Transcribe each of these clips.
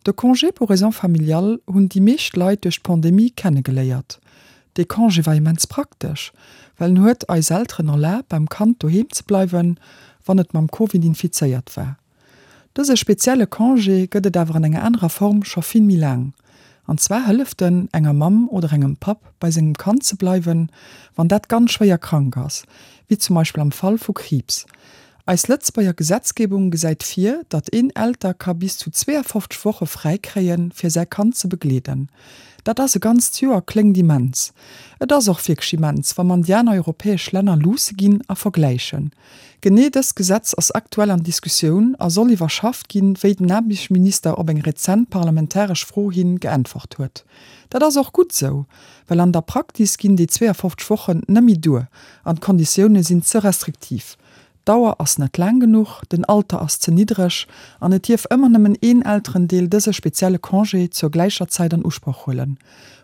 De Congé pour raisons familiales hunn déi meescht Leit duerch d'Pandemie kennegeléiert. Dee Congé war immens praktesch, well en huet eis Elteren erlaabt beim Kand doheem ze bleiwen, wann et mam Covid infizéiert war. Dëse spezielle Congé gëtt et awer an enger anerer Form scho vill méi laang. An zwar hëlleft en enger Mamm oder engem Papp bei sengem Kand ze bleiwen, wann dat ganz schwéier krank ass, wéi zum Beispill am Fall vu Kriibs. Eis Lëtzebuerger Gesetzgebung gesäit vir, datt een Elter ka bis zu 52 Woche fräi kréien, fir säi Kand ze begleeden. Dat ass e ganzt Joer, kléngt immens. Et ass och wierklech immens, wa mer an déi aner europäesch Länner luusse ginn a vergläichen. Genee dëst Gesetz ass aktuell an Diskussioun a soll iwwerschafft ginn, wéi den Aarbechtsminister op eng rezent parlamentaresch Fro hin geäntwert huet. Dat ass och gutt esou, well an der Praktis ginn déi 52 Wochen nëmmi duer an d'Konditioune sinn ze restriktiv. D'Dauer ass net laang genuch, den Alter ass ze niddreg an et dierf ëmmer nëmmen een Elterendeel dëse spezielle Congé zur gläicher Zäit an Usproch huelen.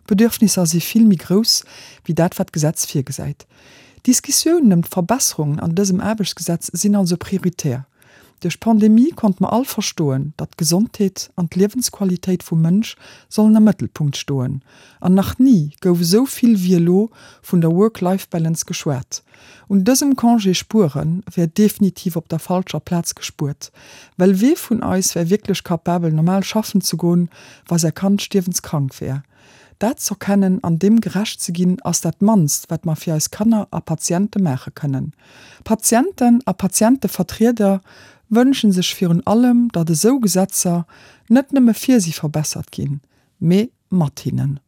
D'Bedürfnisser si vill méi grouss wéi dat wat d'Gesetz virgesäit. D'Diskussiounen ëm d'Verbesserungen an dësem Aarbechtsgesetz sinn also prioritär. Duerch d'Pandemie konnte mer all verstoen, datt d'Gesondheet an d'Liewensqualitéit vum Mënsch sollen am Mëttelpunkt stoen. An nach ni gouf esou vill wéi elo vun der Work-Life-Balance geschwat. Un dësem Congé spuere wär definitiv op der falscher Plaz gespuert, well wee vun eis wär wierklech capabel normal schaffen ze goen, wa säi Kand stierwenskrank wär? Dat z'erkennen an deem gerecht ze ginn, ass dat mannst, wat mer fir eis Kanner a Patiente maache kënnen. Patienten a Patientevertrieder wënsche sech virun allem, datt esou Gesetzer net nëmme fir si verbessert ginn, mee mat hinnen.